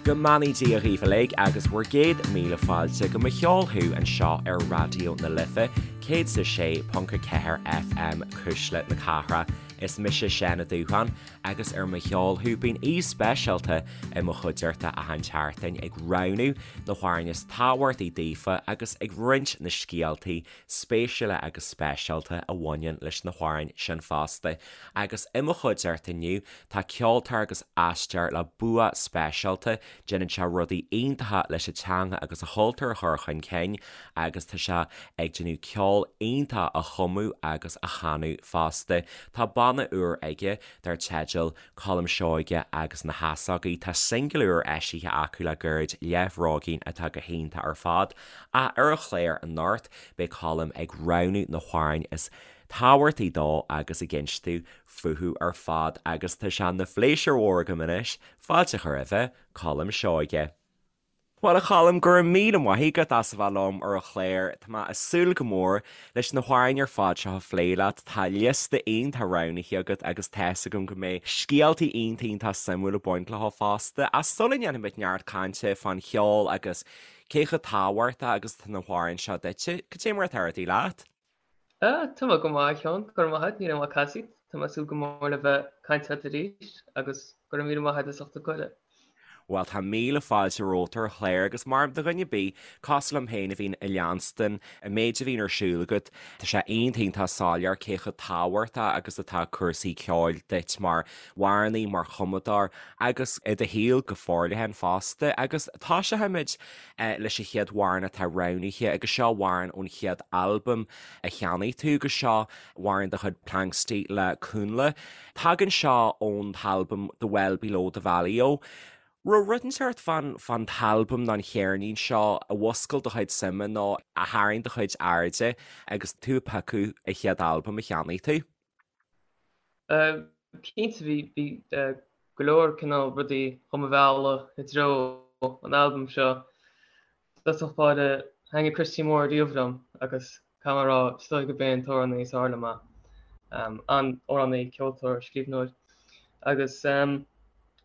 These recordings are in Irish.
Go mbeannaí Dia dhaoibh uilig agus bhur gcéad míle fáilte go Mo Cheol Thú anseo ar Raidió na Life 106.4 FM Cuisle na Cathrach. Is mise Seán Ó Dúcháin agus ar Mo Cheol Thú bíonn aoi speisialta i mo chuideachta achan tseachtain ag roghnú na hamhráin is tábhachtaí daofa agus ag roinnt na scéaltaí spéisiúla agus speisialta a bhaineann leis na hamhráin sin fosta. Agus i mo chuideachta inniu tá ceoltóir agus aisteoir le bua speisialta, déanann sé rudaí iontacha leis an teanga agus an chultúr a chur chun cinn agus tá sé ag déanamh ceol iontach a chumadh agus a chanadh fosta. Tá banna úr aige dar teideal Colm Seoige agus na hEasógaí. Tá singil úr eisithe acu le gairid, Leathbhróigín, atá go hiontach ar fad. Ach ar an chlár anocht, beidh Colm ag roghnú na hamhráin is tábhachtaí dó agus ag inst fúthu ar fad agus tá sé ina phléisiúr mhór agam anois fáilte a chur roimhe, Colm Seoige. Bhuel, a Choilm, go raibh míle maith agat as a bheith liom ar an chlár. Tá mé ag súil go mór leis na hamhráin ar fad seo a phlé leat. Tá liosta iontach roghnaithe agat agus tá's agam go mbeidh scéaltaí iontach iontach suimiúil ag baint leo fosta. Ach sula ndéanfaimid neart cainte fán cheol agus cé chomh tábhachtach agus atá na hamhráin seo duitse, cad é mar atá rudaí leat? Tá mé go maith, a Sheáin. Go raibh maith agat, níl aon mhaith casaoid. Tá mé ag súil go mór le bheith ag caint leat arís agus go raibh míle maith agat as ucht an cuireadh. Bhuel, tá míle fáilte romhat ar an chlár agus mar do dhuine ar bith, cosúil liom féin a bhíonn ag leanstan an méid a bhíonn ar siúl agat, tá sé iontach iontach soiléir cé chomh tábhachtach agus atá cúrsaí ceoil duit mar amhránaí, mar chumadóir agus i do shaol go forleathan fosta. Agus tosóimid leis an chéad amhrán atá roghnaithe agus seo amhrán ón chéad albam a cheannaigh tú agus seo amhrán de chuid Planxty le Cúnla. Tagann seo ón t-albam The Well Below the Valley-O. Raibh rud inteacht fán fán t-albam nó an cheirnín seo a mhúscail do chuid suime nó a tharraing do chuid airde agus tú ag piocadh an chéad albam a cheannaigh tú? Cinnte bhí bhí go leor cineál rudaí do mo mhealladh i dtreo an albaim seo. I dtosach báire thaitnigh Christy Moore riamh liom agus caithfidh mé a rá is dóigh gurb é an t-amhránaí is fearr liom é. An-amhránaí, ceoltóir, scríbhneoir. Agus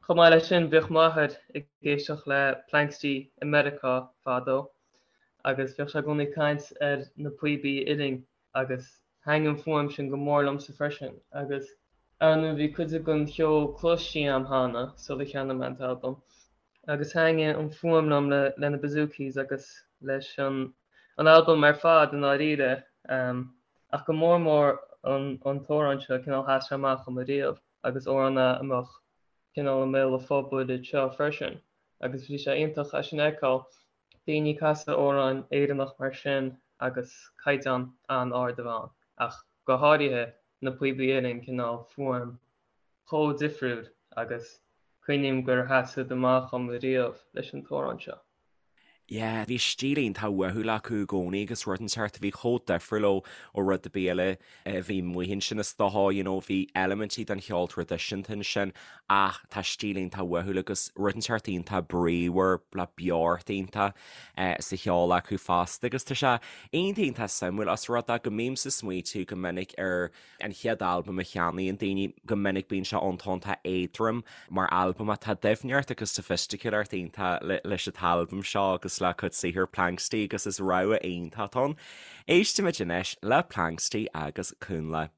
chomh maith leis sin bhíodh m'athair ag éisteacht le Planxty i Meiriceá fadó agus bhíodh sé i gcónaí ag caint ar na píobaí uilleann agus thaitnigh an fuaim sin go mór liomsa freisin agus ar ndóigh bhí cuid den cheol cloiste agam cheana sular cheannaigh mé an t-albam agus thaitnigh an fuaim liom le le na bouzoukis agus leis an an albam ar fad i ndáiríre ach go mór mór an an t-amhrán seo cineál sheas sé amach dhom ariamh agus amhrán é a mbeadh cineál i mbéal an phobail anseo freisin agus bhí sé iontach é sin a fheiceáil. Daoine ag casadh amhráin Éireannach mar sin agus caighdeán an-ard a bheith ann, ach go háirithe na píobaí uilleann, cineál fuaim chomh difriúil agus cuimhním gur sheas siad amach dhom ariamh leis an t-amhrán seo. Yeah, bhí stíl iontach uathúil acu i gcónaí agus rud inteacht a bhí chomh difriúil ó ó rud ar bith eile a bhí amuigh ansin is dócha, you know, bhí eilimintí den cheol traidisiúnta ansin ach tá stíl iontach uathúil agus rud inteacht iontach bríomhar le beocht iontach sa cheol acu fosta agus tá sé iontach iontach suimiúil os rud é go mbímse ag smaoitiú go minic ar an chéad albam a cheannaíonn daoine, go minic bíonn sé iontach iontach éadrom mar albam ach tá doimhneacht agus soifisticiúlacht iontach leis an t-albam seo agus le cuid saothar Planxty agus is rogha iontach atá ann. Éistimid anois le Planxty agus Cúnla.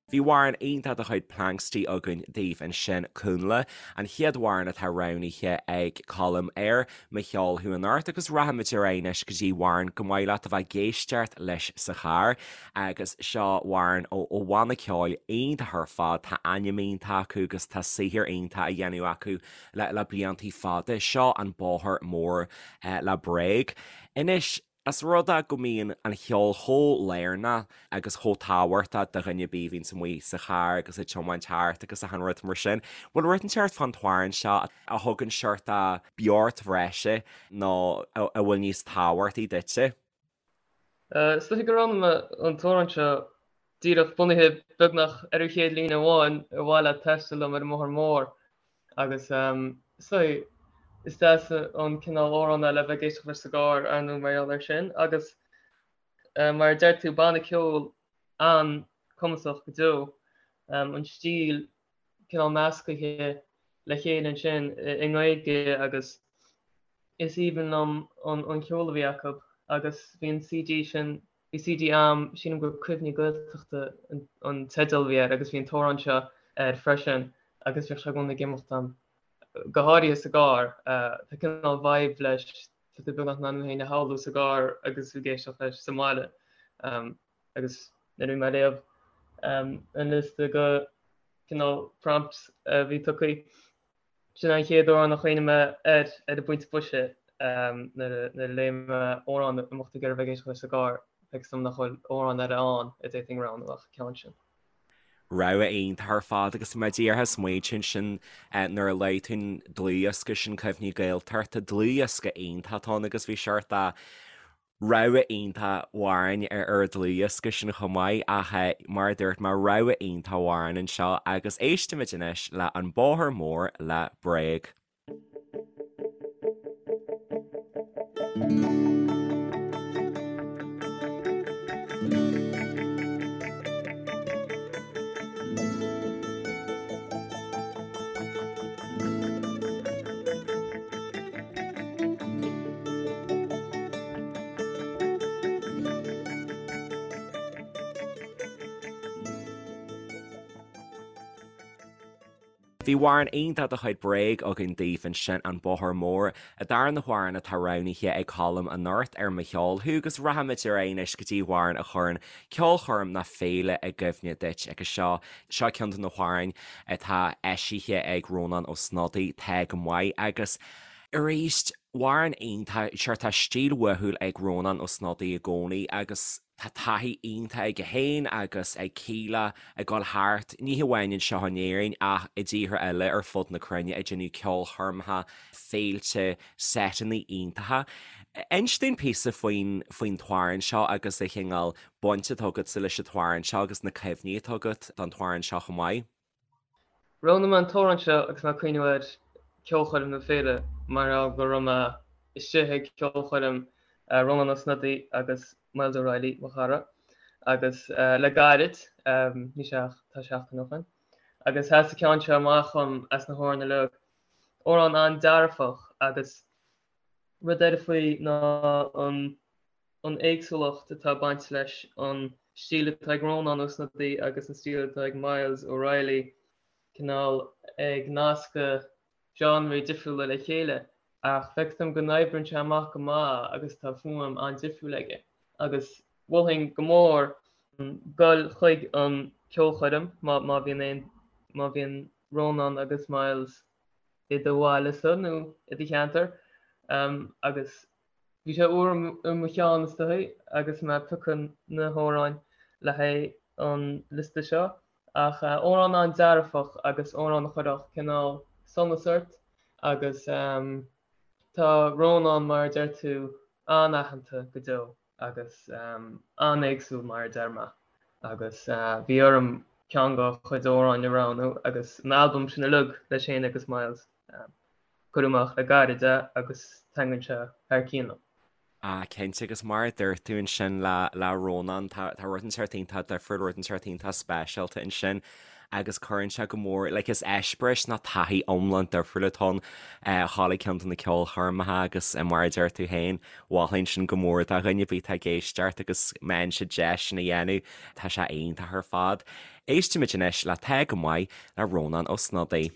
Bhí amhrán iontach de chuid Planxty againn daoibh ansin, Cúnla, an chéad amhrán atá roghnaithe ag Colm ar Mo Cheol Thú anocht agus rachaimid ar aghaidh anois go dtí amhrán go maith leat a bheith ag éisteacht leis sa charr agus seo amhrán ó ó bhanna ceoil iontach ar fad, tá ainm iontach acu agus tá saothar iontach á dhéanamh acu le le bliantaí fada. Seo An Bóthar Mór le Bréag. Anois. Os rud é go mbíonn an cheol chomh lárnach agus chomh tábhachtach do dhuine ar bith a bhíonns amuigh sa charr agus ag tiomáint thart agus achan rud mar sin, bhfuil rud inteacht fán t-amhrán seo a thugann seort beocht bhreise nó a bhfuil níos tábhachtaí duitse? Is dóiche gur roghnaigh mé an t-amhrán seo díreach bunaithe beagnach ar an chéad líne amháin, ar mhaith leat taisteal liom ar an mbóthar mór agus is dóiche is deas an cineál amhrán é le bheith ag éisteacht leis sa gcarr, ar ndóigh, mar gheall air sin agus mar a deir tú, banna ceoil an-cumasach go deo, an stíl cineál meascaithe le chéile ansin i nGaeilge agus is aoibhinn liom an ceol a bhí acu agus bhí an CD sin, bhí CD a'm, sílim gur Cuimhní Gaeltachta an teideal a bhí air agus bhí an t-amhrán seo air freisin agus bhíodh sé i gcónaí ag imeacht a'm, go háirithe sa gcarr. Tá cineál vibe leis, tá tú beagnach in ann thú féin a shamhlú sa gcarr agus tú ag éisteacht leis sa mbaile. Agus nuair a bhí mé ag léamh an liosta de cineál prompts a bhí tugtha, sin an chéad amhrán a chuimhnigh mé air ar an bpointe boise nuair a léigh mé amhrán a mbeadh tú ag iarraidh bheith ag éisteacht leis sa gcarr, feictear dom nach bhfuil amhrán eile ann a d'fhéadfainn roghnú ach an ceann sin. Rogha iontach ar fad agus mé díreach ag smaointiú ansin nuair a luaigh tú an dlúthdhiosca sin Cuimhní Gaeltachta, dlúthdhiosca iontach atá ann agus bhí seort de Rogha iontach amhráin ar an dlúthdhiosca sin chomh maith ach mar a dúirt mé, rogha iontach amhrán anseo agus éistimid anois le An Bóthar Mór le Bréag. Bhí amhrán iontach de chuid Bréag againn daoibh ansin, An Bóthar Mór, an darna hamhrán atá roghnaithe ag Colm anocht ar Mo Cheol Thú agus rachaimid ar aghaidh anois go dtí amhrán a chuireann ceolchoirm nó féile i gcuimhne duit agus seo, seo ceann de na hamhráin atá eisithe ag Rónán Ó Snodaigh, Tá Go Maith agus arís, Amhrán iontach, sure tá stíl uathúil ag Rónán Ó Snodaigh i gcónaí agus tá taithí iontach aige féin agus ag Kíla ag dul thart, ní hamháin anseo in Éirinn ach i dtíortha eile ar fud na cruinne ag déanamh ceolchoirmeacha, féilte, seiteanna iontacha. Inis dúinn píosa faoin faoin t-amhrán seo agus an chineál baint atá agatsa leis an t-amhrán seo agus na cuimhní atá agat don t-amhrán seo chomh maith. Roghnaigh mé an t-amhrán seo agus mé ag cuimhniú ar ceolchoirm nó féile mar gheall go raibh mé istigh ag ceolchoirm Rónán Ó Snodaigh agus Myles O'Reilly, mo chara, agus le gairid, ní sé ach tá seachtain ó shin, agus sheas an ceann seo amach dhom as na hamhráin uilig. Amhrán an-dearfach agus rud eile faoi ná an an éagsúlacht atá ag baint leis an stíl atá ag Rónán Ó Snodaigh agus an stíl atá ag Myles O'Reilly, cineál ag nascadh genreí difriúla le chéile, ach feictear dom go n-oibríonn sé amach go maith agus tá fuaim an-difriúil aige. Agus mholfainn go mór dul chuig an ceolchoirm má má bhíonn aon má bhíonn Rónán agus Myles i do bhaile-sa nó i do cheantar agus Bhí sé úr i mo cheann is dóichí agus mé ag piocadh na hamhráin le haghaidh an liosta seo, ach amhrán an-dearfach agus amhrán a chuirfeadh cineál sonas ort agus tá Rónán, mar a deir tú, an-aitheanta go deo agus an-éagsúil mar a deir mé agus bhí orm ceann dá chuid amhráin a roghnú agus an albam sin uilig leis féin agus Myles. Cuireadh amach le gairid é agus taitníonn sé thar cionn liom. Ah, cinnte, agus mar a dúirt tú ansin le, le Rónán, tá, tá rud inteacht iontach difriúil, rud inteacht iontach speisialta ansin agus cuireann sé go mór, like is eispéireas nó taithí iomlán difriúil atá ann a dhul ag ceann de na ceolchoirmeacha agus mar a deir tú féin, mholfainn sin go mór do dhuine ar bith atá ag éisteacht agus má fhaigheann siad deis sin a dhéanamh, tá sé iontach ar fad. Éistimid anois le Tá Go Maith le Rónán Ó Snodaigh.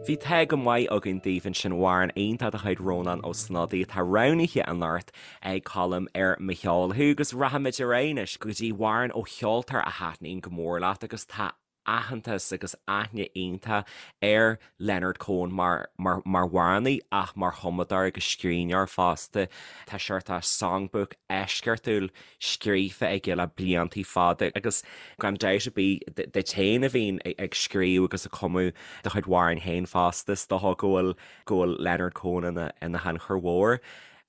Bhí tá go maith againn daoibh ansin amhrán iontach de chuid Rónán Ó Snodaigh atá roghnaithe anocht ag Colm ar Mo Cheol Thú agus rachaimid ar aghaidh anois go dtí amhrán ó cheoltóir a thaitníonn go mór leat agus tá aitheantas agus aithne iontach ar Leonard Cohen mar mar mar amhránaí ach mar chumadóir agus scríbhneoir fosta. Tá seort songbook eisceachtúil scríofa aige le bliantaí fada agus gan dabht ar bith duit féin a bhíonn ag scríobh agus ag cumadh do chuid amhráin féin fosta, is dócha go bhfuil go bhfuil Leonard Cohen ina ina thionchar mhór.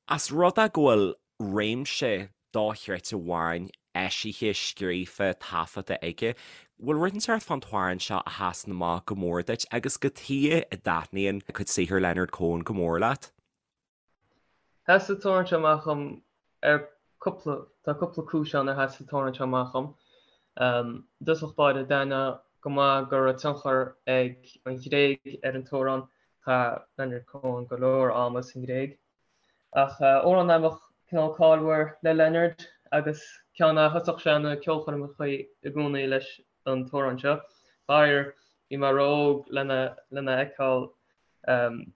As rud é go bhfuil réimse dochreidte amhráin eisithe, scríofa, taifeadta aige, bhfuil rud inteacht fán t-amhrán seo a sheasann amach go mór duit agus cad chuige a dtaitníonn cuid saothair Leonard Cohen go mór leat? Sheas an t-amhrán seo amach dhom ar cúpla, tá cúpla cúis ann ar sheas an t-amhrán seo amach dhom. I dtosach báire, d'aithneofá go maith go raibh tionchar ag an Ghréig ar an t-amhrán, chaith Leonard Cohen go leor ama sa nGréig. Ach amhrán a bheadh cineál cáilmhar le Leonard agus ceann a thosódh sé na ceolchoirmeacha i gcónaí leis an t-amhrán seo. Faraor, bhí mé ró-óg lena lena fheiceáil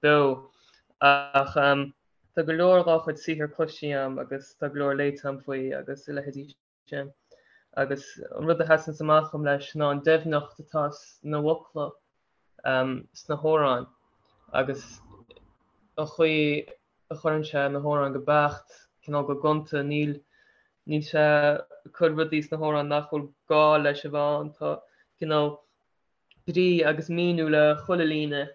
beo. Ach tá go leor dá chuid saothar cloiste agam agus tá go leor léite agam faoi agus a leithéidí sin. Agus an rud a sheasanns amach dhom leis ná an doimhneacht atá sna bhfocla sna hamhráin agus an chaoi a chuireann sé na hamhráin go beacht, cineál go gonta, níl níl sé ag cur rudaí sna hamhráin nach bhfuil gá leis a bheith ann, tá cineál brí agus míniú le chuile líne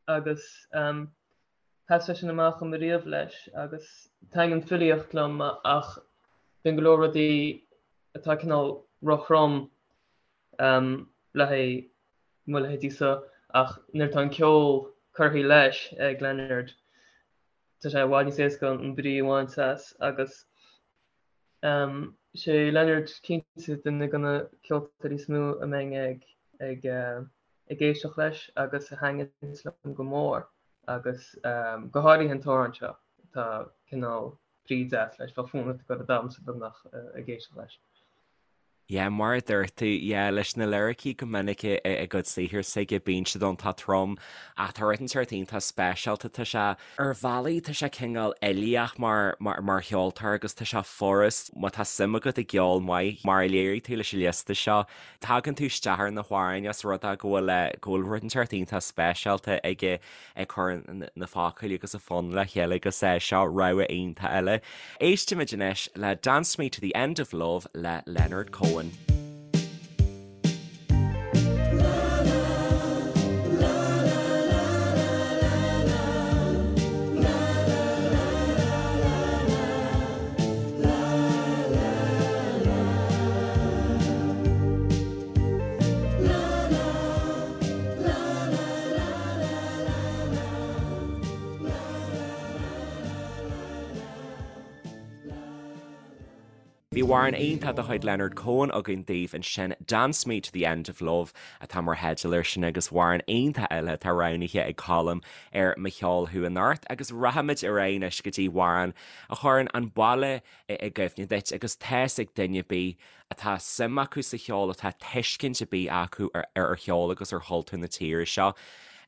agus sheas sé sin amach dhom ariamh leis agus taitníonn filíocht liom ach bíonn go leor rudaí atá cineál róthrom le haghaidh mo leithéidí-sa ach nuair atá an ceol curtha leis ag Leonard tá sé i bhfad níos éasca an brí a bhaint as agus sé Leonard cinnte duine de na ceoltóirí is mó a mbeinn ag ag ag éisteacht leis agus a thaitníonns liom go mór agus go háirithe an t-amhrán seo, tá cineál brí deas leis, bheadh fonn ort ag dul ag damhsa beagnach ag éisteacht leis. Yeah, mar a dúirt tú, yeah, leis na liricí go minic i gcuid saothar s'aige, bíonn siad iontach trom ach tá rud inteacht iontach speisialta, tá sé, ar bhealaí tá sé cineál uilíoch mar, mar, mar cheoltóir agus tá sé furast, má tá suim agat i gceol maith, mar a léirigh tú leis an liosta seo, Tagann tú isteach ar na hamhráin os rud é go bhfuil go bhfuil rud inteacht iontach speisialta aige ag cur na focail agus a fonn le chéile agus seo rogha iontach eile. Éistimid anois le Dance Me to the End of Love le Leonard Cohen. Bhí amhrán iontach de chuid Leonard Cohen againn daoibh ansin, Dance Me to the End of Love atá mar theideal air sin agus amhrán iontach eile atá roghnaithe ag Colm ar Mo Cheol Thú anocht agus rachaimid ar aghaidh anois go dtí amhrán a chuireann an baile i gcuimhne duit agus tá's ag duine ar bith atá suim acu sa cheol, atá tuiscint ar bith acu ar cheol agus ar chultúr na tíre seo,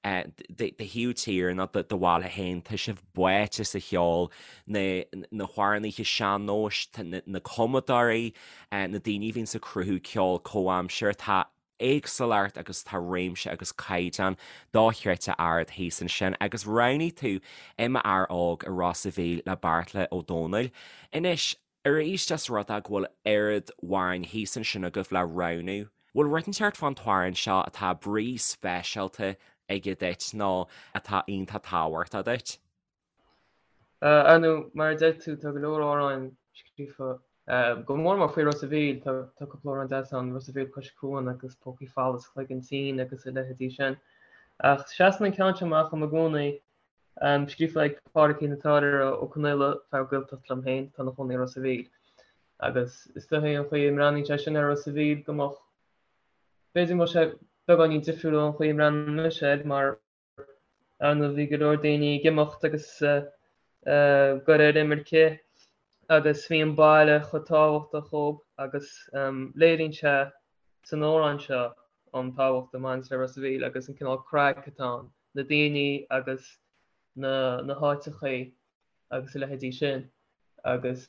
do thaobh tíre nó do bhaile féin, tá sibh báite sa cheol, na na hamhránaithe sean-nóis, na cumadóirí, na daoine a bhíonns ag cruthú ceol comhaimseartha, tá éagsúlacht agus tá réimse agus caighdeán dochreidte ard thíos ansin agus roghnaigh tú I M'Fhear Óg i Ros a' Mhíl le Beartla Ó Domhnaill. Anois, arís os rud é go bhfuil oiread amhráin thíos ansin agaibh le roghnú, bhfuil rud inteacht fán t-amhrán seo atá brí speisialta aige duit nó atá iontach tábhachtach duit? Ar ndóigh, mar a deir tú, tá go leor amhráin scríofa, go mór mór faoi Ros a' Mhíl. Tá cúpla amhrán deas ann, Ros a' Mhíl Cois Cuain agus Pócaí Folamh is Cloigeann Tinn agus a leithéidí sin. Ach seasann an ceann seo amach dom i gcónaí, scríofa ag Pádraigín an tÁirir Ó Conaola, fear Gaeltachta liom féin, atá ina chónaí i Ros a' Mhíl. Agus is dóichí an chaoi a mbreathnaíonn sé sin ar Ros a' Mhíl go mbeadh, b'fhéidir go mbeadh sé beagáinín difriúil ón chaoi a mbreathnaíonn mise air mar, Ar ndóigh bhí go leor daoine ag imeacht agus ag goil ar imirce agus bhí an baile chomh tábhachtach dhób agus léiríonn sé san amhrán seo an tábhacht a bhaineanns le Ros a' Mhíl agus an cineál craic atá ann. na daoine agus na na háiteachaí agus a leithéidí sin agus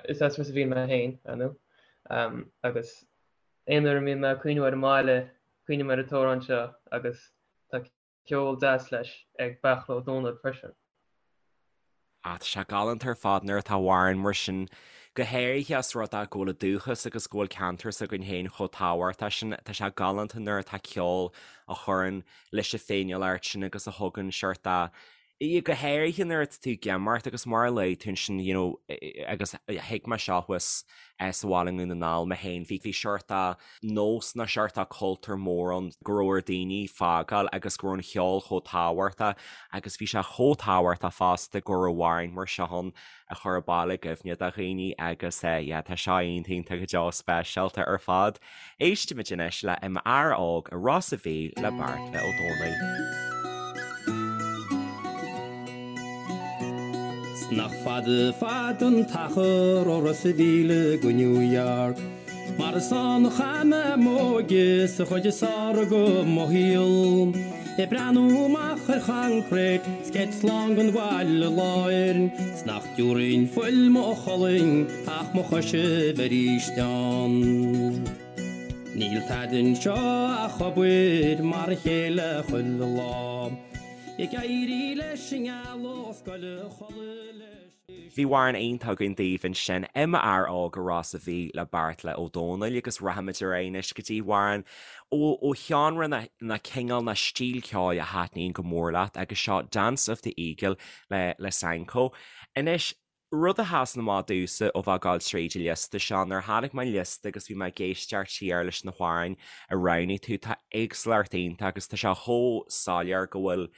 is as Ros a' Mhíl mé féin, ar ndóigh, agus aon uair a mbíonn mé ag cuimhniú ar an mbaile, cuimhním ar an t-amhrán seo agus tá ceol deas leis ag Beartla Ó Domhnaill freisin. Ah, tá sé galánta ar fad nuair atá amhrán mar sin, go háirithe os rud é go bhfuil an dúchas agus go bhfuil ceantar s'againn féin chomh tábhachtach sin. Tá sé galánta nuair atá ceol a chuireann leis an féiniúlacht sin agus a thugann seort de, go háirithe nuair atá tú ag imeacht agus mar a luaigh tú ansin, you know, agus thuig mé seo thuas sa bhaile i nDún na nGall mé féin, bhí seort de nós nó seort de cultúr mór ann go raibh ar daoine fágáil agus go raibh an cheol chomh tábhachtach agus bhí sé chomh tábhachtach fosta go raibh amhráin mar seo ann a chuir an baile i gcuimhne do dhaoine agus yeah tá seo iontach iontach go deo speisialta ar fad. Éistimid anois le I m'Fhear Óg i Ros a' Mhíl le Beartla Ó Domhnaill. 'S nach fada fada an t-achar ó Ros a' Mhíl go New York Mar is ann a chaith mé m'óige 's an chuid is fearr de mo shaol. Ag breathnú amach ar choincréit 's céad slán den bhaile láir 's nach dtiúrfainn fuil mo cholainn ach mo chois a bheith arís ann. Níl tada anseo ach obair mar a chéile chuile lá. Ag éirí leis an ngealach 's goil a chodladh leis. Bhí amhrán iontach againn daoibh ansin, I m'Fhear Óg i Ros a' Mhíl le Beartla Ó Domhnaill agus rachaimid ar aghaidh anois go dtí amhrán ó sheánra nó cineál nó stíl ceoil a thaitníonn go mór leat agus seo Dance of the Eagle le le Sanko. Anois, rud a sheasann amach domhsa ó bheith ag gabháil tríd an liosta seo, nuair a chonaic mé an liosta agus bhí mé ag éisteacht siar leis na hamhráin a roghnaigh tú, tá éagsúlacht iontach agus tá sé chomh soiléir go bhfuil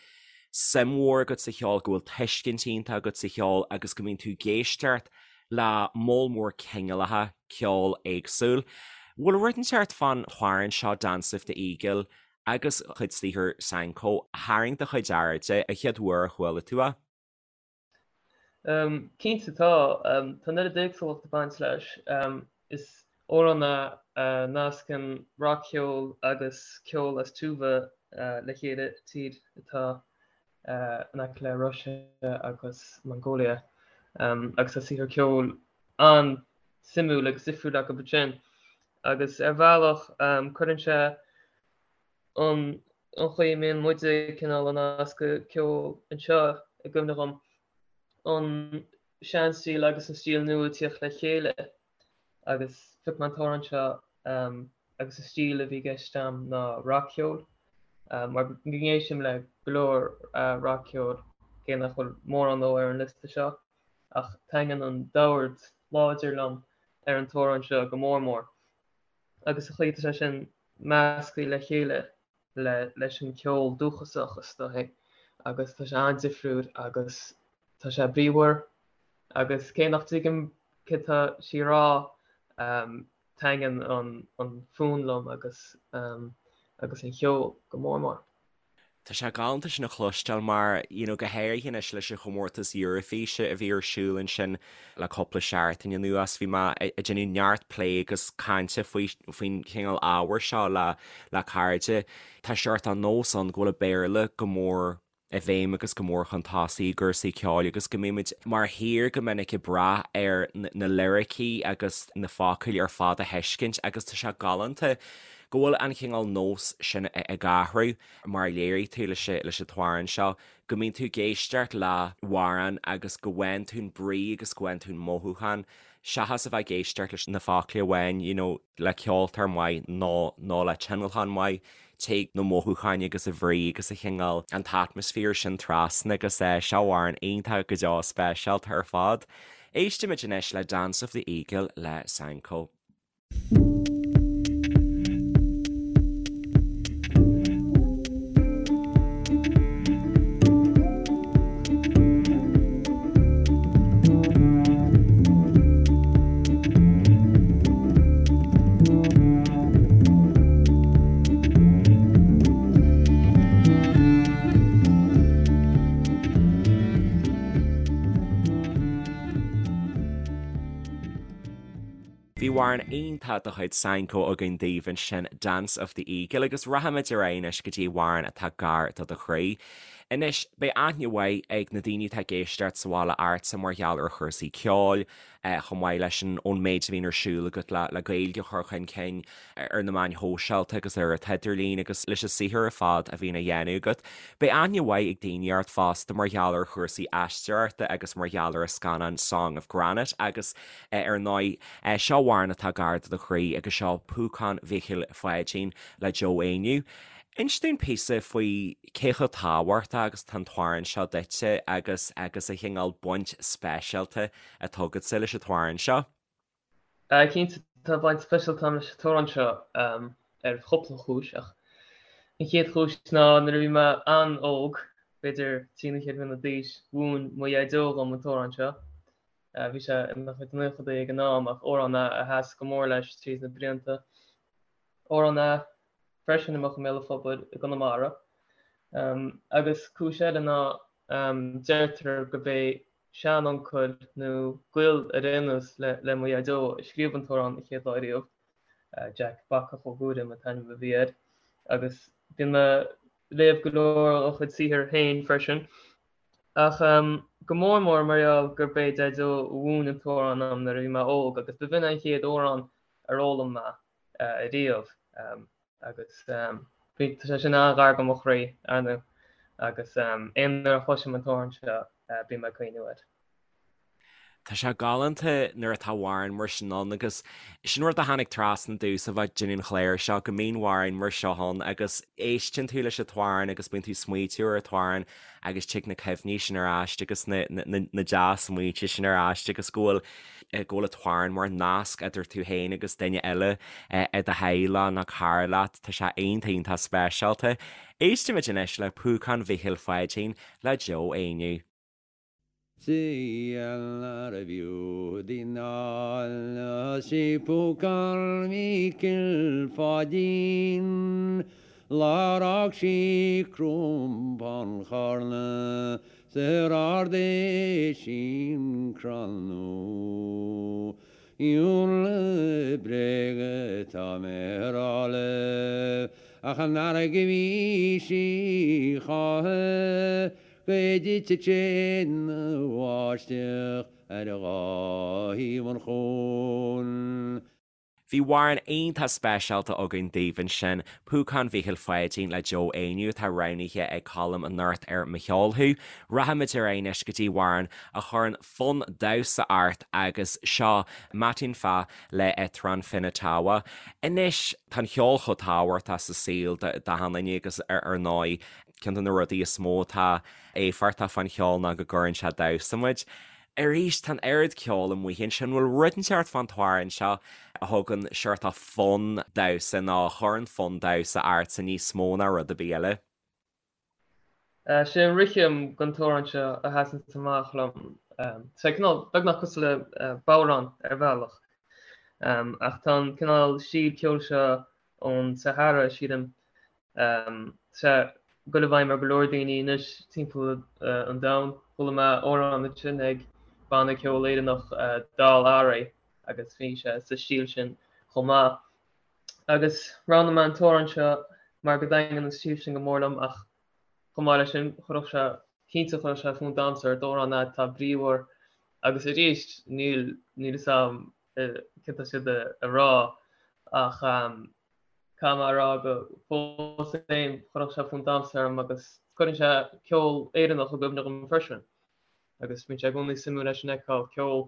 suim mhór agat sa cheol, go bhfuil tuiscint iontach agat sa cheol agus go mbíonn tú ag éisteacht le moll mór cineálacha ceoil éagsúil. Bhfuil rud inteacht fán amhrán seo Dance of the Eagle agus cuid saothar Sanko a tharraing do chuid airde an chéad uair a chuala tú é? Cinnte tá. Tá an oiread éagsúlacht ag baint leis. Is amhrán é a nascann rac-cheol agus ceol as Tuva le chéile, tír atá in aice le Russia agus Mongolia. Agus tá saothar ceoil an-suimiúil agus difriúil acu ansin. Agus ar bhealach cuireann sé an chaoi a mbíonn muide cineál ag nascadh ceol anseo i gcuimhne dhom, an seanstíl agus an stíl nua ag tíocht le chéile agus phioc mé an t-amhrán seo agus an stíl a bhí i gceist a'm ná rac-cheol mar go n-éistim le go leor rac-cheoil cé nach bhfuil mórán dó ar an liosta seo ach taitníonn an dord láidir liom ar an t-amhrán seo go mór mór agus an chaoi atá sé sin measctha le chéile le leis an cheol dúchasach is dóichí agus tá sé an-difriúil agus tá sé bríomhar agus cé nach dtuigim céard tá sí a rá taitníonn an an fonn liom agus agus an cheol go mór mór. Tá sé galánta sin a chloisteáil mar, you know, go háirithe anois leis an chomórtas Eurofíse a bhí ar siúl ansin le cúpla seachtain anuas, bhí mé ag déanamh neart plé agus cainte faoi faoin chineál ábhair seo le le cairde. Tá seort de nós ann go bhfuil an Béarla go mór i bhfeidhm agus go mór chun tosaigh i gcúrsaí ceoil agus go mbímid mar thír go minic ag brath ar na liricí agus na focail ar fad a thuiscint agus tá sé galánta go bhfuil an chineál nós sin ag athrú, mar a léirigh tú leis leis an t-amhrán seo, go mbíonn tú ag éisteacht le hamhrán agus go bhfaigheann tú an brí agus go bhfaigheann tú an mothúchán, seachas a bheith ag éisteacht leis na focla amháin, you know, le ceoltóir maith nó nó le tionlacán maith, téann na mothúcháin agus an bhrí agus an chineál, an t-atmaisféar sin trasna agus eh, seo amhrán iontach go deo speisialta ar fad. Éistimid anois le Dance of the Eagle le Sanko. Bhí. amhrán iontach de chuid Saenko againn daoibh ansin, Dance of the Eagle, agus rachaimid ar aghaidh anois go dtí amhrán atá gar do do chroí. Anois, beidh aithne mhaith ag na daoine atá ag éisteacht sa bhaile ortsa mar gheall ar chúrsaí ceoil, chomh maith leis an ón méid a bhíonn ar siúl agat le le Gaeilge a chur chun cinn ar na meáin shóisialta agus ar an t-idirlíon agus leis an saothar ar fad a bhíonn á dhéanamh agat. Beidh aithne mhaith ag daoine ort fosta mar gheall ar chúrsaí aisteoireachta agus mar gheall ar an scannán Song of Granite agus ar ndóigh seo amhrán atá gar do do chroí agus seo Púcán Mhíchíl Pháidín le Joe Éinniú. Inis dúinn píosa faoi cé chomh tábhachtach agus atá an t-amhrán seo duitse agus agus an chineál baint speisialta atá agatsa leis an t-amhrán seo. Cinnte, tá baint speisialta agam leis an t-amhrán seo ar chúpla chúis ach an chéad chúis ná nuair a bhí mé an-óg, b'fhéidir trí nó ceithre bliana d'aois, mhúin mo dhaideo dhom an t-amhrán seo. Bhí sé ina chuid naochadaí ag an am ach amhrán é a sheas go mór leis tríd na blianta. Amhrán é freisin a mbeadh i mbéal an phobail i gConamara. Agus cúis eile ná deirtear gurb é seanuncail nó gaol ar aon nós le mo dhaideo a scríobh an t-amhrán an chéad lá riamh, Jack Bacach Ó Guairim an t-ainm a bhí air, agus bíonn mé ag léamh go leor dá chuid saothair féin freisin. Ach go mór mór mar gheall gurb é Daideo a mhúin an t-amhrán dom nuair a bhí mé óg agus b'in an chéad amhrán ar fhoghlaim mé ariamh. Agus bhí, tá sé sin an-ghar do mo chroí, ar ndóigh, agus aon uair a chloisim an t-amhrán seo, bím ag cuimhniú air. Tá sé galánta nuair atá amhrán mar sin ann agus sin rud a tháinig trasna domhsa bheith ag déanamh an chláir seo, go mbíonn amhráin mar seo ann agus éisteann tú leis an t-amhrán agus bíonn tú ag smaoitiú ar an t-amhrán agus tig na cuimhní sin ar ais agus na dea-smaointe sin ar ais agus go bhfuil go bhfuil an t-amhrán mar nasc idir tú féin agus duine eile i do theaghlach nó cara leat, tá sé iontach iontach speisialta. Éistimid anois le Púcán Mhíchíl Pháidín le Joe Éinniú. Seal nárbh fhiú di ná sí Púcán Mhíchíl Pháidín Lá ar fhág sí Cromán Charna 's ar ardaigh sí an crann nua. Ionradh bréige atá mé a rá libh ach an fharraige bhí sí choíche go dtitfeadh sé ina bháisteach ar dhá thaobh an chuain. Bhí amhrán iontach speisialta againn daoibh ansin, Púcán Mhíchíl Pháidín le Joe Éinniú atá roghnaithe ag Colm anocht ar Mo Cheol Thú. Rachaimid ar aghaidh anois go dtí amhrán a chuireann fonn damhsa ort agus seo Matinpää le Etran Finatawa. Anois, tá an ceol chomh tábhachtach sa saol d'achan duine agus ar ndóigh ceann de na rudaí is mó atá éifeachtach fán cheol ná go gcuireann sé ag damhsa muid. Arís, tá an oiread ceoil amuigh ansin, bhfuil rud inteacht fán t-amhrán seo a thugann seort of fonn damhsa nó a chuireann fonn damhsa ortsa níos mó ná rud ar bith eile? Sé an rithim den t-amhrán seo a sheasann amach liom. Tá sé cineál beagnach cosúil le bodhrán ar bhealach. Ach tá an cineál stíl ceoil seo ón Sahara, sílim, Tá sé ag dul i bhfeidhm ar go leor daoine anois timpeall an domhain. Chuala mé amhrán ansin ag banna ceoil Éireannach Dál Arae agus bhí sé sa stíl sin chomh maith. Agus roghnaigh mé an t-amhrán seo mar go dtaitníonn an stíl sin go mór liom ach chomh maith leis sin chuirfeadh sé, cinnte chuirfeadh sé fonn damhsa ort, amhrán é atá bríomhar agus arís níl níl fhios a'm céard tá siad a rá ach Caithfidh mé a rá go fós féin chuirfeadh sé fonn damhsa orm agus cuireann sé ceol Éireannach i gcuimhne dhom freisin. Agus bíonn sé i gcónaí suimiúil leis an fheiceáil ceol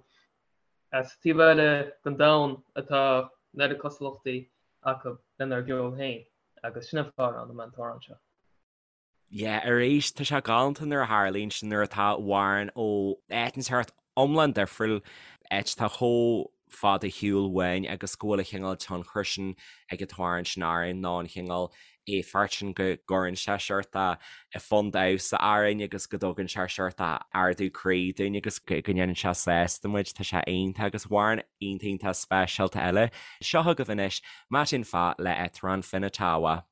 as taobh eile den domhan atá an oiread cosúlachtaí acu lenár gceol féin agus sin an fáth a roghnaigh mé an t-amhrán seo. Yeah, arís, tá sé galánta nuair a tharlaíonn sin, nuair atá amhrán ó áit inteacht iomlán difriúil, áit atá chomh fada ar shiúl uainn agus go bhfuil an chineál tionchair sin ag an t-amhrán sin orainn nó an chineál éifeacht sin go gcuireann sé seort fonn damhsa orainn agus go dtugann sé seort ardú croí dúinn agus go ndéanann sé sásta muid, tá sé iontach agus amhrán iontach iontach speisialta eile. Seo chugaibh anois, Matinpää le Etran Finatawa.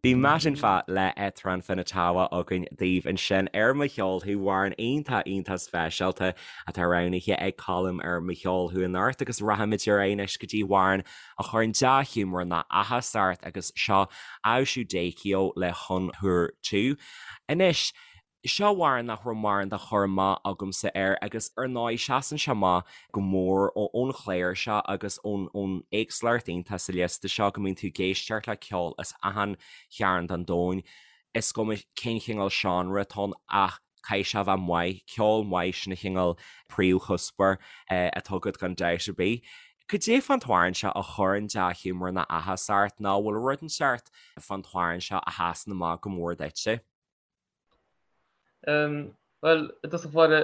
Bhí Matinpää le Etran Finatawa againn daoibh ansin ar Mo Cheol Thú, amhrán iontach iontach speisialta atá roghnaithe ag Colm ar Mo Cheol Thú anocht agus rachaimid ar aghaidh anois go dtí amhrán a chuireann dea-ghiúmar ná áthas ort agus seo Aoshu Daykio le Huun Huur Tu. Anois, Seo amhrán nach raibh mórán de chur amach agamsa air agus ar ndóigh seasann sé amach go mór ón chlár seo agus ón éagsúlacht iontach sa liosta seo go mbíonn tú ag éisteacht le ceol as achan chearn den domhan, is cuma cén chineál seánra atá ann ach caithfidh sé a bheith maith, ceol maith sin an chineál príomhchuspóir atá agat gan dabht ar bith. Cad é fán t-amhrán seo a chuireann dea-ghiúmar ná áthas ort nó bhfuil rud inteacht fán t-amhrán seo a sheasann amach go mór duitse? Bhuel, i dtosach báire,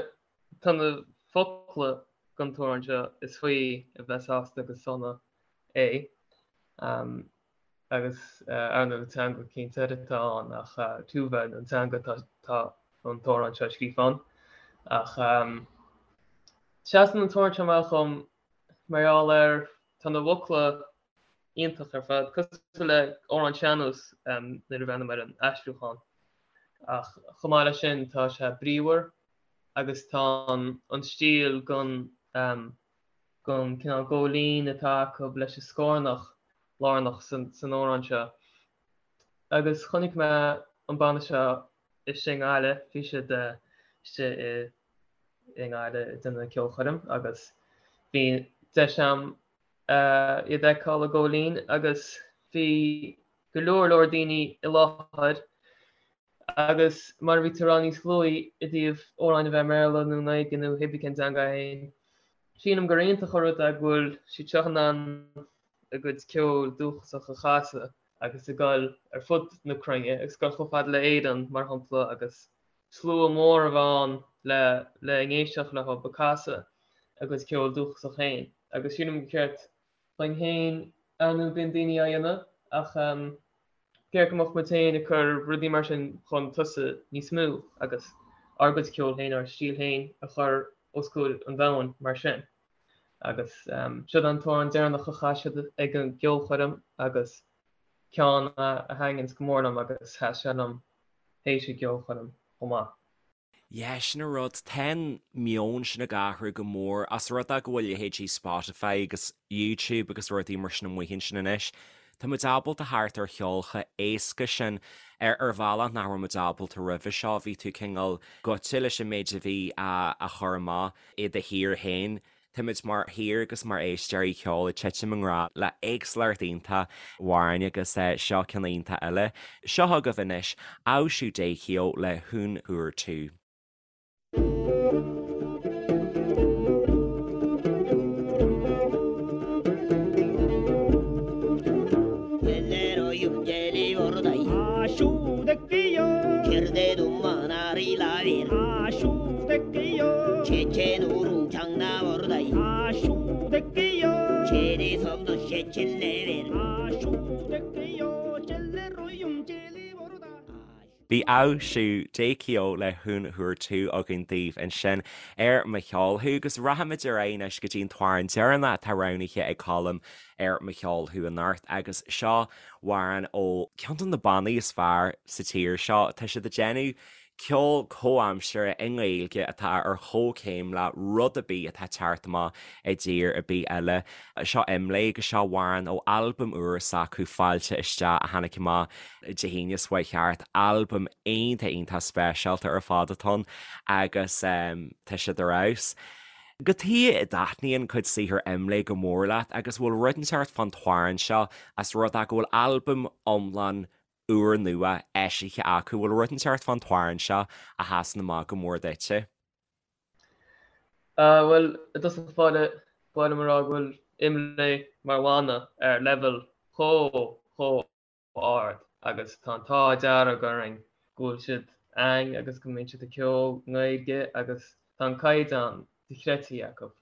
tá na focla den t-amhrán seo is faoi a bheith sásta agus sona é. Agus ar ndóigh teanga cinnte atá ann ach Tuva an teanga atá an t-amhrán seo scríofa ann. Ach seasann an t-amhrán seo amach dhom mar gheall ar tá na bhfocla iontach ar fad, cosúil le amhrán sean-nós nuair a bhreathnaím ar an aistriúchán. Ach chomh maith leis sin tá sé bríomhar agus tá an stíl den den cineál góilín atá acu leis an scornach lárnach san amhrán seo. Agus chonaic mé an banna seo istigh i nGaillimh, bhí siad istigh i i nGaillimh ag déanamh ceolchoirm agus bhí deis a'm iad a fheiceáil i Góilín agus bhí go leor leor daoine i láthair agus mar a bhí tú ag rá níos luaithe i dtaobh amhráin a bheith i mBéarla nó i nGaeilge nó hé bí cén teanga é féin, sílim gur iontach an rud é go bhfuil siad seo in ann a gcuid ceoil dúchasach a chasadh agus ag dul ar fud na cruinne agus dul chomh fada le Éirinn mar shampla agus slua mór a bheith ann le le n-éisteacht leo ag casadh a gcuid ceoil dúchasach féin agus sílim gur cheart dhuinn féin ar ndóigh bíonn daoine á dhéanamh ach ceart go mbeadh muid féin ag cur rudaí mar sin chun tosaigh níos mó agus ár gcuid ceoil féin, ár stíl féin a chur os comhair an domhain mar sin. Agus siod an t-amhrán deireanach a chas siad ag an gceolchoirm agus ceann a thaitníonns go mór liom agus sheas sé liom théis an gceolchoirm chomh maith. Yeah, sin an rud, tá an meon sin ag athrú go mór, as rud é go bhfuil leithéidí Spotify agus YouTube agus rudaí mar sin amuigh ansin anois. Tá muid ábalta theacht ar cheol chomh éasca sin ar ar bhealach nach raibh muid ábalta roimhe seo, bhí tú cineál gaibhte leis an méid a bhí á chur amach i do thír féin. Táimid mar thír agus mar éisteoirí ceoil ag titim i ngrá le éagsúlacht iontach amhrán agus seo ceann iontach eile. Seo chugaibh anois, Aoshu Daykio le Huun Huur Tu. Bhí Aoshu Daykio le Huun Huur Tu againn daoibh ansin ar Mo Cheol Thú agus rachaimid ar aghaidh anois go dtí an t-amhrán deireanach atá roghnaithe ag Colm ar Mo Cheol Thú anocht agus seo amhrán ó cheann de na bannaí is fearr sa tír seo. Tá siad ag déanamh ceol comhaimseartha i nGaeilge atá ar chomhchéim le rud ar bith atá ag teacht amach i dtír ar bith eile. Seo IMLÉ agus seo amhrán ó albam úr s'acu, Fáilte Isteach, a tháinig amach Dé hAoine seo chuaigh thart. Albam iontach iontach speisialta ar fad atá ann agus tá siad ar fheabhas. Cad chuige a dtaitníonn cuid saothar IMLÉ go mór leat agus bhfuil rud inteacht fán t-amhrán seo as rud é go bhfuil albam iomlán úrnua eisithe acu. Bhfuil rud inteacht fán t-amhrán seo a sheasann amach go mór duitse? Bhuel, i dtosach báire, ba mhaith liom a rá go bhfuil IMLÉ mar bhanna ar leibhéal chomh, chomh ard agus tá an t-ádh dearg orainn go bhfuil siad a'ainn agus go mbíonn siad ag ceol i nGaeilge agus tá an caighdeán dochreidte acu.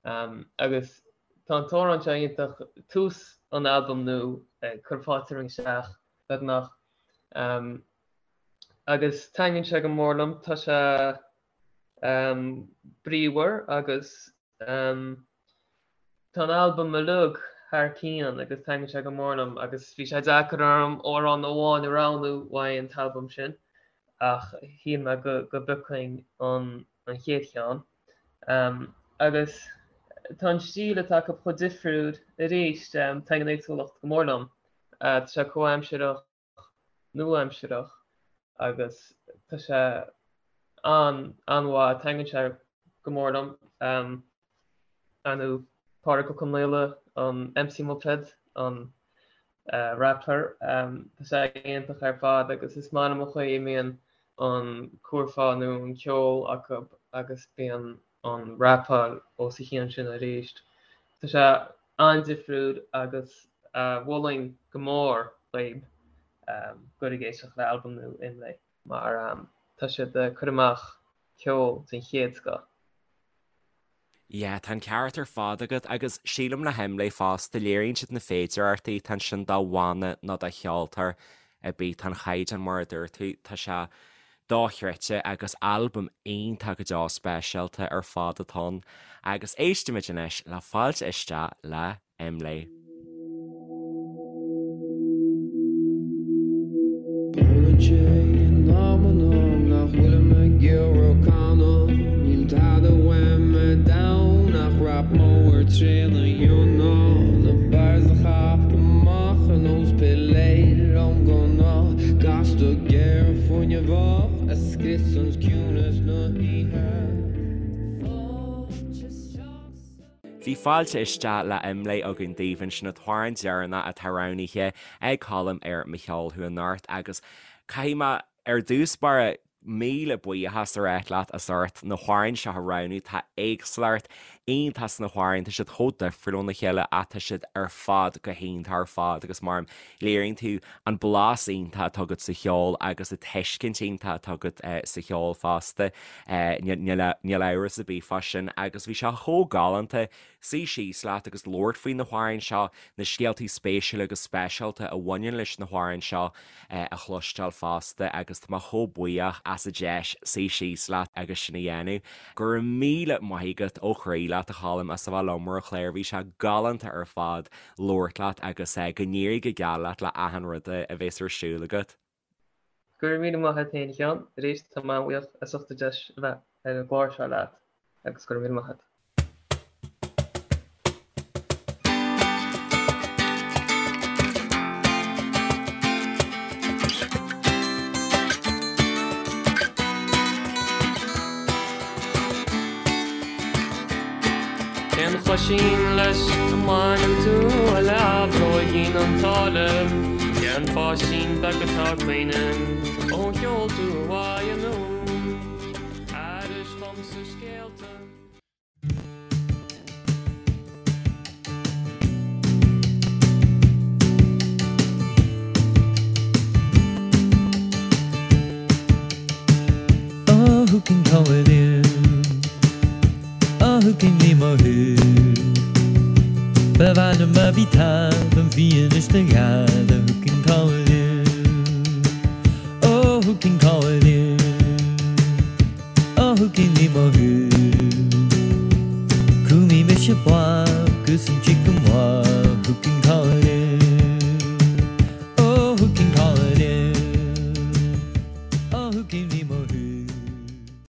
Agus tá an t-amhrán seo iontach, tús an albaim nua ag cur fáilte romhainn isteach beagnach. Agus taitníonn sé go mór liom, tá sé bríomhar agus tá an albam uilig. thar cionn agus taitníonn sé go mór liom agus bhí sé deacair orm amhrán amháin a roghnú uaidh an t-albam sin ach shíl mé go go bpiocfainn an an chéad cheann. Agus tá an stíl atá acu chomh difriúil arís, taitníonn an éagsúlacht go mór liom. Tá sé comhaimsearach, nua-aimsearach agus tá sé an-an-mhaith, taitníonn sé go mór liom. Ar ndóigh Pádraig Ó Conaola, an MC Muipéad, an rapper, tá sé iontach ar fad agus is maith liom an chaoi a mbíonn an curfá nó an ceol acu agus bíonn an rapáil os a chionn sin arís. Tá sé an-difriúil agus mholfainn go mór dhaoib goil ag éisteacht le albam nua Imlé mar tá siad ag cur amach ceol den chéad scoth. Yeah, tá an ceart ar fad agat agus sílim le hImlé fosta, léiríonn siad na féidearthachtaí atá ansin do bhanna nó do cheoltóir ar bith, tá an chaighdeán mar a dúirt tú, tá sé dochreidte agus albam iontach go deo speisialta ar fad atá ann. Agus éistimid anois le Fáilte Isteach le Imlé. Tarlaíonn sé in amanna nach bhfuilim ag iarraidh canadh Níl tada uaim ar domhan ach rap mór trína dhéanamh Na bars a chaitheamh amach ar nós piléar ón ngunna Gasta géar fuinneamhach a scriosann ciúnas na hoíche Fáilte isteach sa. Bhí fáilte isteach le Imlé againn daoibh ansin an t-amhrán deireanach atá roghnaithe ag Colm ar Mo Cheol Thú anocht agus caithfidh mé ar dtús báire míle buíochas a ráit leat as ucht na hamhráin seo a roghnú. Tá éagsúlacht iontach sna hamhráin, tá siad chomh difriúil óna chéile ach tá siad ar fad go hiontach ar fad agus mar léiríonn tú an blas iontach atá agat sa cheol agus an tuiscint iontach atá agat sa cheol fosta. Níl amhras ar bith fá sin agus bhí sé chomh galánta suí síos leat agus labhairt faoi na hamhráin seo, na scéaltaí spéisiúla agus speisialta a bhaineann leis na hamhráin seo a chloisteáil fosta agus tá mé chomh buíoch as an deis suí síos leat agus sin a dhéanamh. Go raibh míle maith agat ó chroí leat a Choilm as a bheith liom ar an chlár, bhí sé galánta ar fad. labhairt leat agus go n-éirí go geal leat le achan rud a bhéas ar siúl agat. Go raibh míle maith agat féin a Sheáin, arís tá mé an-bhuíoch as ucht an deis a bheith ar an gclár seo leat agus go raibh míle maith agat. Cén choisín leis a mbaineann tú a leathbhróigín an tsáile? Cén pháistín beag atá ag caoineadh ó sheol tú uaidh anonn? Aithris domsa scéalta. Oh, who can call it in? Oh, who can ní mothú? Ba mhaith liom má bhí tada an bhfianaise do ghada, who can call it in? Oh, who can call it in? Oh, who can ní mothú? Cúmfaidh mise blag agus an chicken mhaith, who can call it in? Oh, who can call it in? Oh, who can ní mothú?